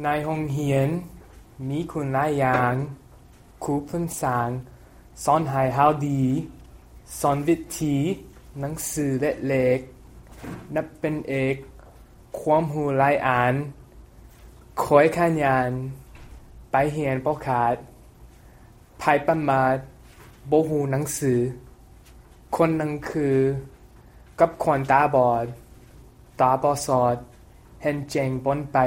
ໃນໂຮງຮຽນມີຄຸນຫຼາຍຢ່າງ, ຄູພື້ນສາງສອນໃຫ້ເຮົາດີ, ສອນວິທີໜັງສືເລກເລັກ, ນັບເປັນເອກ, ຄວາມຮູ້ຫຼາຍອັນ, ຂ້ອຍຂະຫຍັນໄປຮຽນບໍ່ຂາດ, ໃຜປະມາດບໍ່ຮູ້ໜັງສື, ຄົນໜັງສືກັບຄົນຕາບອດ, ຕາບໍ່ສອດເຫັນແຈ້ງບ່ອນໄປ.